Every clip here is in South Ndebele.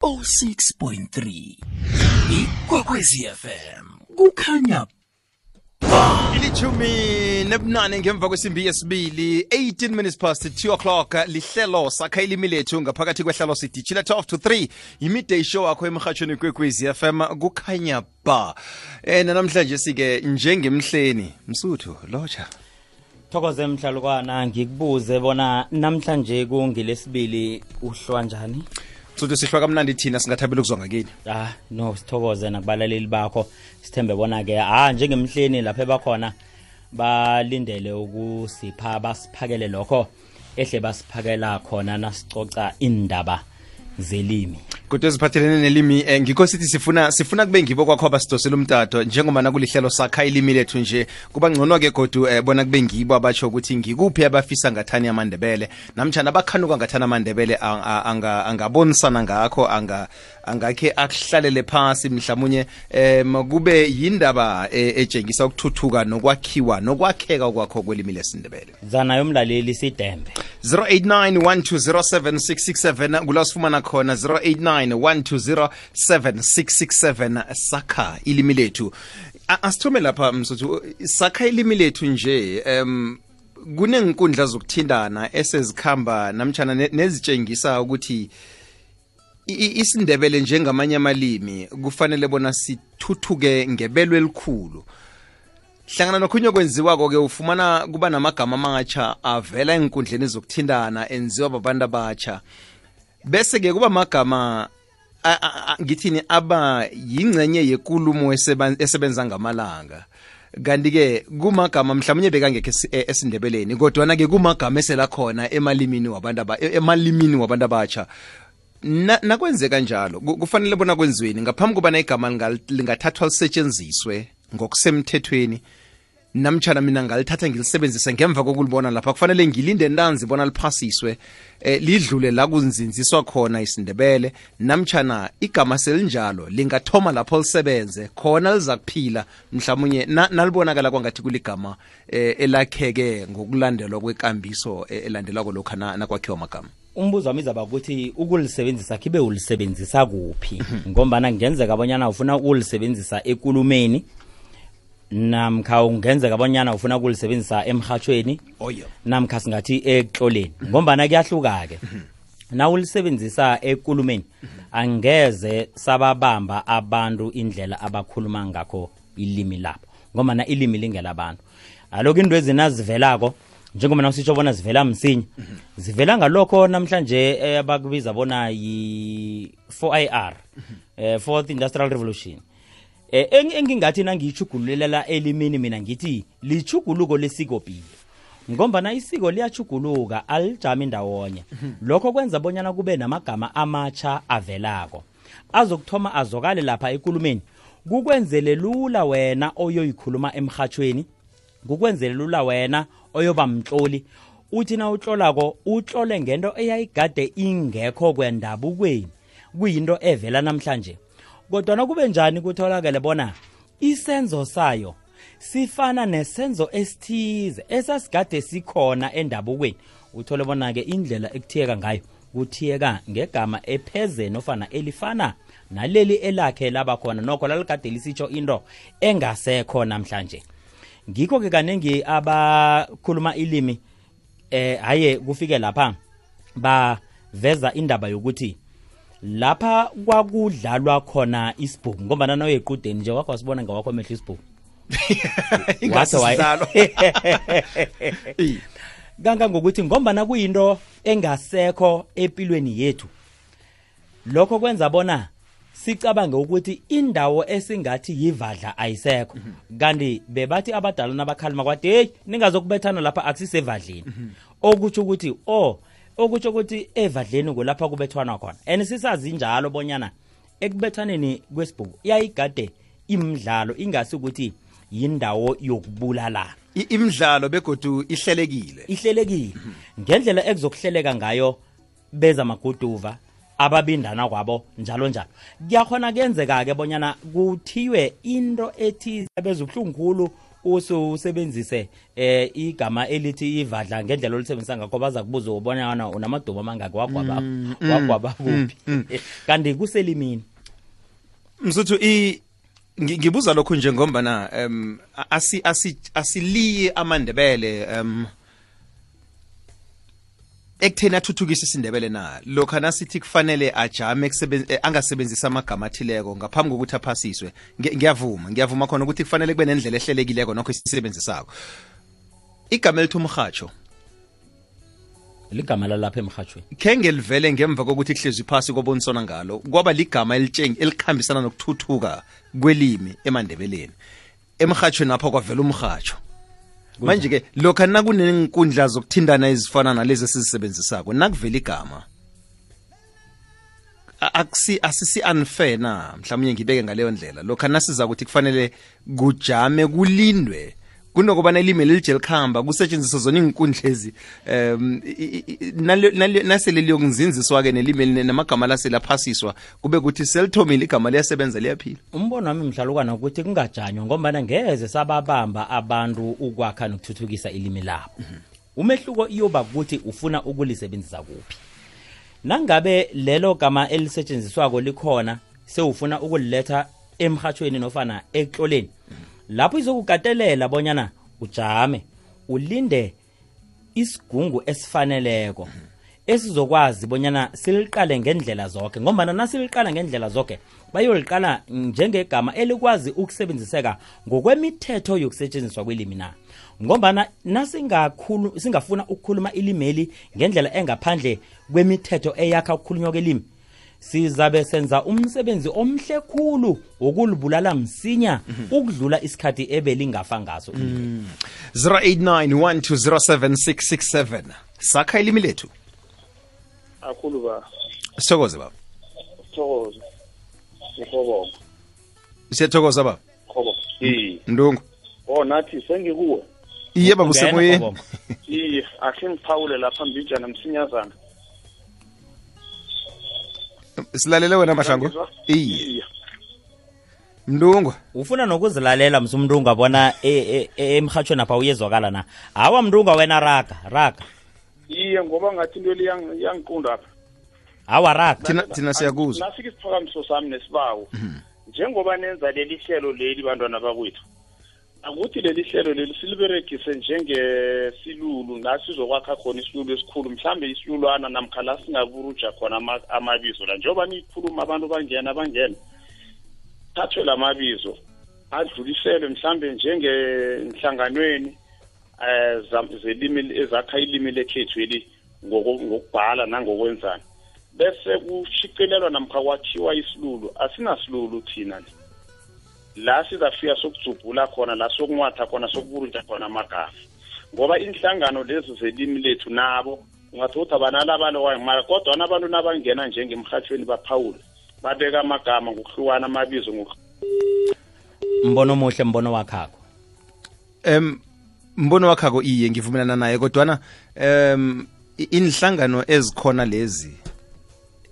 106.3 ikwekwezi FM kukhanya ilithumi nebunane ngemva kwesimbi yesibili 18 minutes past 2 o'clock lihlelo sakha ilimi lethu ngaphakathi kwehlelo sidishila 12 to 3 imidday show akho emhathweni kwekwezi FM kukhanya ba namhlanje sike njengemhleni msuthu locha Thokoze mhlalukwana ngikubuze bona namhlanje kungilesibili uhlwa njani Msuthu sihlwa kamnandi thina singathabela ukuzwa ngakini no sithokoze nakubalaleli bakho sithembe bona ke njengemhleni lapha ebakhona balindele ukusipha basiphakele lokho ehle basiphakela khona nasicoca indaba zelimi kodwa eziphathelene nelimi ngikho sithi sifuna kube ngibo kwakho abasidosela umtato njengoba nakulihlelo sakha ilimi lethu nje kuba ngcono ke kodwa bona kube ngibo abatsho ukuthi ngikuphi abafisa ngathani amandebele namtjana abakhanuka ngathani amandebele angabonisana ngakho angakhe akuhlalele phasi mhlawumnye kube yindaba etshengisa ukuthuthuka nokwakhiwa nokwakheka kwakho kwelimi lesindebele zana yomlaleli sidembe 0891207667 kulasifumana khona 0891207667 sakha ilimi lethu asithome lapha msuthu sakha ilimi lethu nje kunenkundla zokuthindana esezikhamba namtjana nezitshengisa ukuthi isindebele njengamanye amalimi kufanele bona sithuthuke ngebelo elikhulu hlangana nokhunye kwenziwako ke ufumana kuba namagama amatsha avela enkundleni zokuthindana enziwa babantu abatsha bese ke kuba magama ngithini aba yingcenye yekulumo esebenza ngamalanga kanti ke kumagama mhlawumnye bekangekho esindebeleni kodwa na ke kumagama esela khona emalimini wabantu abatsha nakwenzeka njalo kufanele bona kwenziweni ngaphambi kuba igama lingathathwa lisetshenziswe ngokusemthethweni namtjana mina ngalithatha ngilisebenzise ngemva kokulibona lapha kufanele ngilinde ntanzi bona liphasiswe lidlule la kunzinziswa khona isindebele namtjana igama selinjalo lingathoma lapho lisebenze khona liza kuphila mhlawumnye nalibonakala kwangathi kuligama elakheke ngokulandelwa kwekambiso elandelwako lokho nakwakhiwa amagama umbuzo wami izaba ukuthi ukulisebenzisa kibe ulisebenzisa kuphi ngombana ngenzeka abonyana ufuna ukulisebenzisa ekulumeni namkha ungenzeka abonyana ufuna ukulisebenzisa emhathweni namkha singathi ekuhloleni ngombana kuyahluka ke na ulisebenzisa ekulumeni angeze sababamba abantu indlela abakhuluma ngakho ilimi lapho ngombana ilimi lingela abantu aloko into ezinazivelako njengoba nasitsho bona zivela msinya zivela ngalokho namhlanje abakubiza bona yi 4IR Fourth Industrial Revolution engingathi nangiyichugululela elimini mina ngithi lichuguluko lesikopilo ngombana isiko liyachuguluka alijami ndawonye lokho kwenza bonyana kube namagama amatsha avelako azokuthoma azokale lapha ekulumeni kukwenzele lula wena oyoyikhuluma emhathweni kukwenzele lula wena oyoba mtloli uthi na utlolako utlole ngento eyayigade ingekho kwendabukweni kuyinto evela namhlanje kodwa nakube njani kutholakala bona isenzo sayo sifana nesenzo esithize esasigade sikhona endabukweni uthole bona ke indlela ekuthiyeka ngayo kuthiyeka ngegama epheze nofana elifana naleli elakhe laba khona nokho laligade lisitsho into engasekho namhlanje ngikho ke kanengi abakhuluma ilimi haye kufike lapha baveza indaba yokuthi lapha kwakudlalwa khona isibhuku ngoba nana oyequdeni nje wakho wasibona ngawakho amehlo isibhuku ingasidlalo ganga ngokuthi ngomba na kuyinto engasekho empilweni yethu lokho kwenza bona sicabange ukuthi indawo esingathi yivadla ayisekho kanti bebathi abadala nabakhalima kwathi hey ningazokubethana lapha akusisevadleni okuthi okutsho ukuthi evadleni kulapha kubethwana khona sisazi njalo bonyana ekubethaneni kwesibhuku yayigade imidlalo ingasi ukuthi yindawo yokubulala imidlalo begodu ihlelekile ngendlela ekuzokuhleleka ngayo beza maguduva ababindana kwabo njalo kuyakhona kuyenzeka ke bonyana kuthiwe into ethi bezuhlungukhulu usebenzise igama elithi ivadla ngendlela olisebenzisa ngakho baza kubuza ubona unamadumo amangaki wagwaba kuphi kanti kuselimini msuthu ngibuza lokhu nje ngombana asiliye amandebele ekutheni athuthukise isindebele na lokho nasithi kufanele ajame angasebenzisa amagama athileko ngaphambi kokuthi aphasiswe ngiyavuma khona ukuthi kufanele kube nendlela ehlelekileko nokho isisebenzisako igama elithi umrhatsho ligama lalapha emrhatshweni kenge livele ngemva kokuthi kuhlezwe phasi kobonisana ngalo kwaba ligama elikhambisana nokuthuthuka kwelimi emandebeleni emrhatshweni apha kwavela umrhatsho manje ke lokho nakunenkundla zokuthindana ezifana nalezi esizisebenzisako nakuvela igama asisi unfair na mhlawumnye ngibeke ngaleyo ndlela lokho nasiza ukuthi kufanele kujame kulindwe kunokubana ilimi lelije likhamba kusetshenziswa zona inkundla ezi nasele liyokunzinziswa-ke nelimi namagama laselaphasiswa kube kuthi selithomile igama liyasebenza liyaphila umbono wami mhlalukwana ukuthi kungajanywa ngombana ngeze sababamba abantu ukwakha nokuthuthukisa ilimi labo umehluko iyoba ukuthi ufuna ukulisebenzisa kuphi nangabe lelo gama elisetshenziswako likhona sewufuna ukuliletha emrhatshweni nofana ekloleni lapho izokukatelela bonyana ujame ulinde isigungu esifaneleko esizokwazi bonyana siliqale ngendlela zonke ngoba nasiliqala ngendlela zonke bayoliqala njengegama elikwazi ukusebenziseka ngokwemithetho yokusetshenziswa kwelimi na ngoba singafuna ukukhuluma ilimeli ngendlela engaphandle kwemithetho eyakha ukukhulunywa kwelimi sizabe senza umsebenzi omhle khulu wokulibulala msinya ukudlula isikhathi ebelingafa ngaso 0891207667 sakha ilimi lethu akhulu ba sithokoze baba sithokoze ngikhobo siyathokoza baba khobo ndungu nathi sengikuwe iye baba usemoyeni iye asingiphawule lapha mbijana msinyazana silalele wena mahlangu iye mndungu ufuna nokuzilalela msumndungu abona emrhatshweni apha uyezwakala na hawa mndungu wena raga iye ngoba ngathi into yangiqunda apha hawa raga thina siyakuzwa nafika isiphakamiso sami nesibawo njengoba nenza leli hlelo leli bantwana bakwethu akuthi leli hlelo leli siliberegise njengesilulu nasizokwakha khona isilulu esikhulu mhlambe isilulwana namkha la singaburuja khona amabizo la njengoba nikhuluma abantu bangena thathwe lamabizo adluliselwe mhlambe njengenhlanganweni zelimi ezakha ilimi lekhethu eli ngokubhala nangokwenzana bese kushicilelwa namkha kwakhiwa isilulu asinasilulu thina la sizafika sokujubhula khona la sokunwatha khona sokuburunja khona amagama ngoba inhlangano lezi zelimi lethu nabo ungathothi abanalabalo wayimara kodwa nabantu nabangena njengemrhatshweni baphawula babeka amagama ngokuhlukana amabizo mbono omuhle mbono wakhako mbono wakhako iye ngivumelana naye kodwana inhlangano ezikhona lezi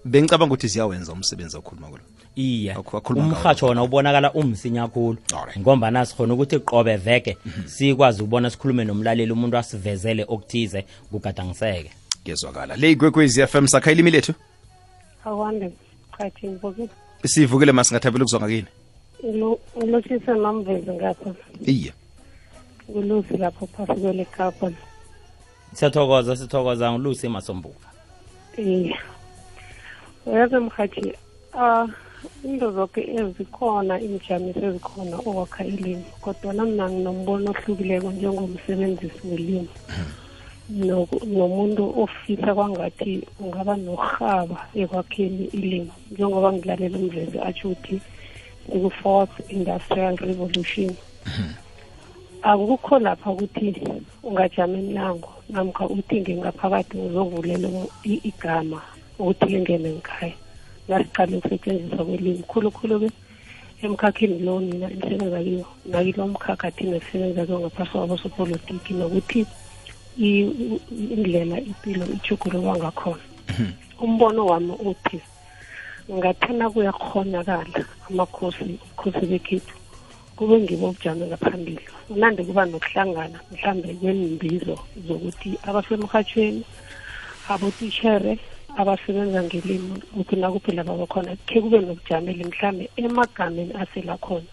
bengicabanga ukuthi ziyawenza umsebenzi okhuluma kulo iya umrhatsho wona ubonakala umsinya kakhulu ngomba nasikhona ukuthi qobe veke sikwazi ukubona sikhulume nomlaleli umuntu asivezele okuthize kugadangiseke ngezwakala le igwekwezi FM sakha ilimi lethu awande chathi ngivukile sivukile masingathabela ukuzwa ngakini ngilosisa mamvezi ngapha iye ngulusi lapho phasi kwele kapa sithokoza ngulusi emasombuka iya uyazi mkhathi into zonke ezikhona imijamiso ezikhona okwakha ilimi kodwa mina nginombono ohlukileko njengomsebenzisi welimi nomuntu ofisa kwangathi ungaba nohaba ekwakheni ilimi njengoba ngilalela umvezi atsho ukuthi ku-4th industrial revolution akukho lapha ukuthi ungajama emnyango namkha uthi ngingaphakathi uzovulela igama ukuthi lingene ngikhaya lasiqale ukusetshenziswa kwelimi khulukhulu-ke emkhakheni lo nina imisebenza kiyo nakilo mkhakha thina sisebenza kiyo ngaphasi kwabosopolitiki nokuthi indlela impilo ijugululwa ngakhona umbono wami uthi ngathana kuyakhonakala ubukhosi bekhethu kube ngibo ubujame ngaphambili unande kuba nokuhlangana mhlambe kweembizo zokuthi abasemrhatshweni abotitshere abasebenza ngelimi ukuthi nakuphela babakhona khe kube nokujamela mhlambe emagameni asela khona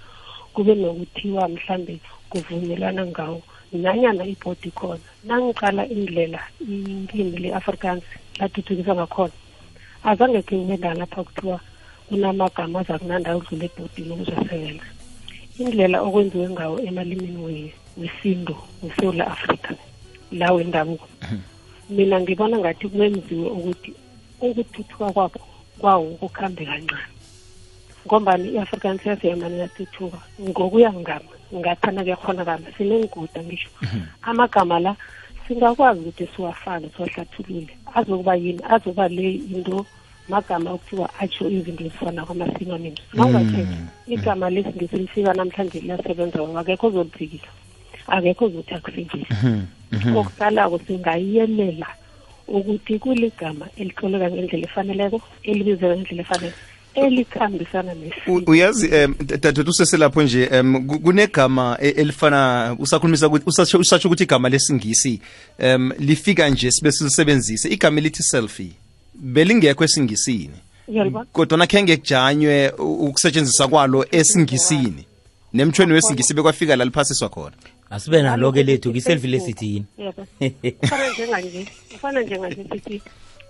kube nokuthiwa mhlambe kuvunyelwana ngawo nanyana ibhodi khona nangiqala indlela ilimi le-Afrikaans lathuthukisa ngakhona azange khe kube lapha kuthiwa kunamagama azakunanda udlula ebhodini ukuzosebenza indlela okwenziwe ngawo emalimini wesintu weSouth Africa la wendabuko mina ngibona ngathi kwenziwe ukuthi ukuthuthuka kwawo kukhambe kancane ngombani i-Afrikaans yaseyamani yathuthuka ngokuya ngami ngathana kuyakhonakala sinenguda ngisho amagama la singakwazi ukuthi siwafake siwahlathulule azokuba yini azoba le into magama okuthiwa atsho izinto ezifana kwama-synonyms nawungathetha igama lesingisi lifika namhlanje liyasebenza akekho ozoliphikisa akekho ozothi akusebenzise okuqalako singayelela ukuthi kuligama elihloleka ngendlela efaneleko elibizeka ngendlela efanele elikhambisana nesimo uyazi dadethu useselapho nje kunegama elifana usakhulumisa ukuthi usatsho ukuthi igama lesingisi lifika nje sibe silisebenzise igama elithi selfie belingekho esingisini kodwa nakhenge kujanywe ukusetshenziswa kwalo esingisini nemthweni wesingisi bekwafika la liphasiswa khona asibe nalo ke lethu kiselfie lesithini ufana njenganje sithi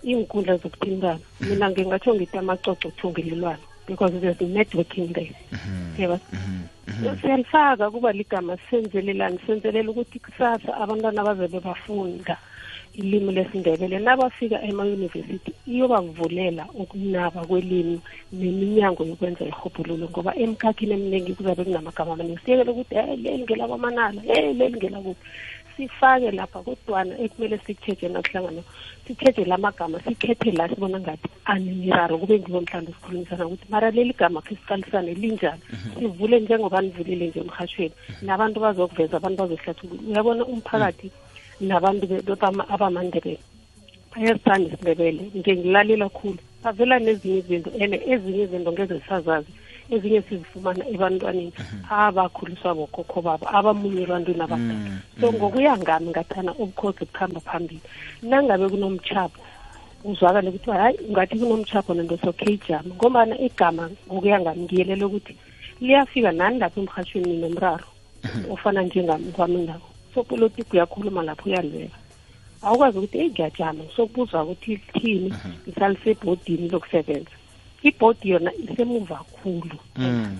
inkundla zokuthintana mina ngingatsho ngithi amacoco uthungelelwano because there's networking there yeba siyalifaka kuba ligama senzelelani senzelela ukuthi kusasa abantwana bazobe bafunda ilimi lesindebele nabafika ema-university iyobavulela ukunaba kwelimi neminyango yokwenza ihobhululo ngoba emkhakhini eminingi kuzabe kunamagama amaningi siyekele ukuthi leli ngelakwamanala leli ngelakuphi sifake lapha kodwana ekumele sikutsheje nakuhlangana sithethe lamagama sikhethe la sibona ngathi anemiraro kube ngibo mhlawumbe sikhulumisana ukuthi mara leli gama khe siqalisane linjani sivule njengoba nivulile nje emrhatshweni nabantu bazokuveza abantu bazohlathulula uyabona umphakathi nabantu abamandebele bayasithanda isindebele nje ngilalela khulu bavela nezinye izinto ene ezinye izinto ngeze zisazazi ezinye sizifumana ebantwaneni abakhuliswa bokhokho babo abamunye ebantwini abadala so ngokuya ngami ngathana ubukhosi bukhamba phambili nangabe kunomtshapho uzwakale ukuthi hayi ngathi kunomtshapho nento sokhejama ngombana igama ngokuya ngami ngiyelela ukuthi liyafika nani lapho emrhatshweni nomraro ofana njengami kwami nabo so politiki uyakhuluma lapho uyalwela awukwazi ukuthi ngiyajama sokubuzwa ukuthi thini ngisalisebhodini lokusebenza ibhodi yona isemuva kakhulu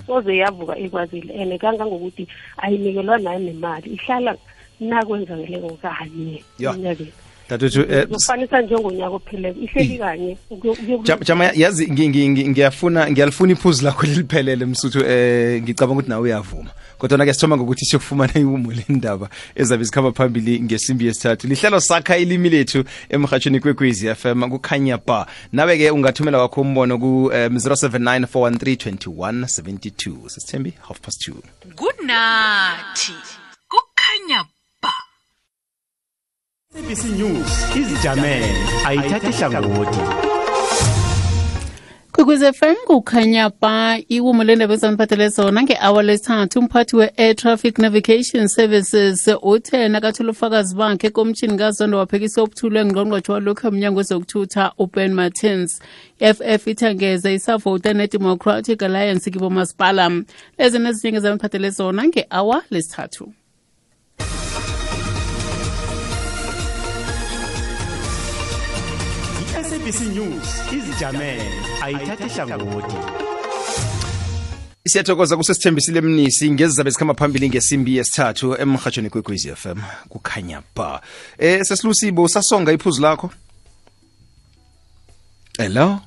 soze yavuka ekwazile ene kangangokuthi ayinikelwa nayo nemali ihlala nakwenzakeleko kanye enyakeni dadethu ufanisa njengonyaka ophelele ihleli kanye jama yazi ngiyalifuna iphuzu lakho liliphelele msuthu ngicabanga ukuthi nawe uyavuma kodwa ke sithoma ngokuthi siyokufumana iwumo lendaba ezabe zikhamba phambili ngesimbi yesithathu lihlelo sakha ilimi lethu emrhatshweni kwekwezi FM kukhanya ba nawe ke ungathumela wakho umbono ku 0794132172 sisithembi 2:30 kunathi kukhanya ba ABC News izijamele ayithathe hlangothi Kwekwezi FM kukhanya ba iwumo lendaba ezaniphathele zona nge-hour lesithathu umphathi we-Air Traffic Navigation Services uthe nakathola ufakazi bakhe ekomishini kazondo waphekisa ubuthule ngqongqotjhe walokhu emnyango wezokuthutha uBen Martins FF ithangeza isavota ne-Democratic Alliance kibomasipala lezi nezinye ezaniphathele zona nge-hour lesithathu ABC News izijamele ayithathe hlangothi Siyathokoza kusesithembisile Mnisi ngezizabe zikhamba phambili ngesimbi yesithathu emrhatshweni kwekwezi FM kukhanya ba sesilusibo sasonga iphuzu lakho hello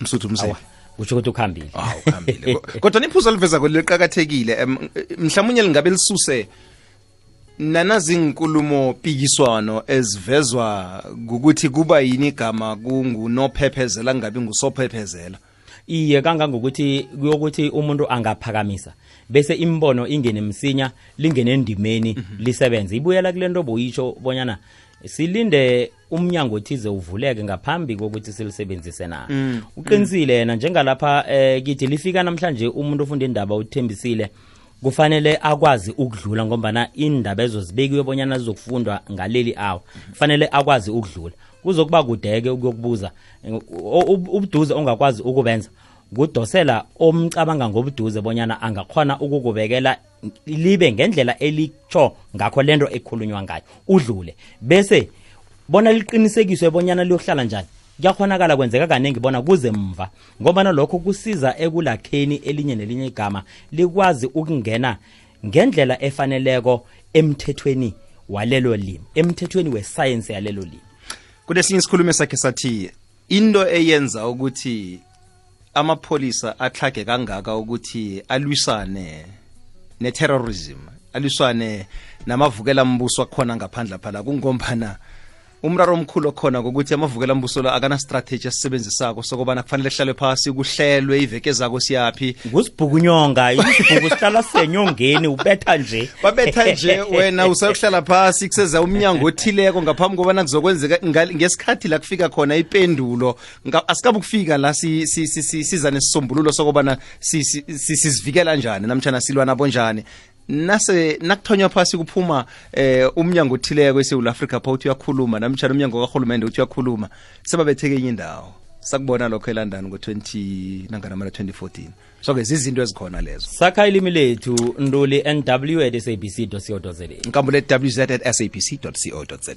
msuthu mse utsho ukuthi ukhambile ukhambile kodwa niphuzu liveza kweliqhakathekile mhlawumnye lingabe lisuse nanazinkulumo pikiswano ezivezwa ukuthi kuba yini igama kungunophephezela ngabe ngusophephezela iye kangangokuthi kuyokuthi umuntu angaphakamisa bese imbono ingene msinya lingene endimeni lisebenze ibuyela kulento boyisho bonyana silinde umnyango othize uvuleke ngaphambi kokuthi silisebenzise na. Uqinisile yena njengalapha kithi lifika namhlanje umuntu ofunda indaba uthembisile kufanele akwazi ukudlula ngombana indaba ezozibekiwe bonyana zizokufundwa ngaleli awo kufanele akwazi ukudlula kuzokuba kudeke ukuyokubuza ubuduze ongakwazi ukubenza kudosela omcabanga ngobuduze bonyana angakhona ukukubekela libe ngendlela elicho ngakho lento ekhulunywa ngayo udlule bese bona liqinisekiswe bonyana liyohlala njani kuyakhonakala kwenzeka kanengi bona kuze mva ngoba lokho kusiza ekulakheni elinye nelinye igama likwazi ukungena ngendlela efaneleko emthethweni walelo limi emthethweni wescience yalelo limi. Kunesinye isikhulumo sakhe sathi into eyenza ukuthi amapholisa atlhage kangaka ukuthi alwisane neterrorism alwisane namavukela mbuso akhona ngaphandle phala kungombana umraro omkhulu khona ukuthi amavukela mbuso la akana strategy asebenzisako sokubana kufanele hlale phasi kuhlelwe iveke zako siyapi kusibhukunyonga isibhuku sihlala senyongeni ubetha nje babetha nje wena usayokuhlala phasi kuseza umnyango othileko ngaphambi kobana kuzokwenzeka ngesikhathi la kufika khona ipendulo asikabe ukufika la siza nesisombululo sokubana sizivikela njani namtjana silwa nabo njani nase nakuthonywa phasi kuphuma umnyango othileko eSouth Africa pha uthi uyakhuluma namtjana umnyango kahulumende uthi uyakhuluma sebabetheke enye indawo sakubona lokho eLondon ngo-2014 so ke izinto ezikhona lezo sakha ilimi lethu nduli nw@sabc.co.za nkambule wz@sabc.co.za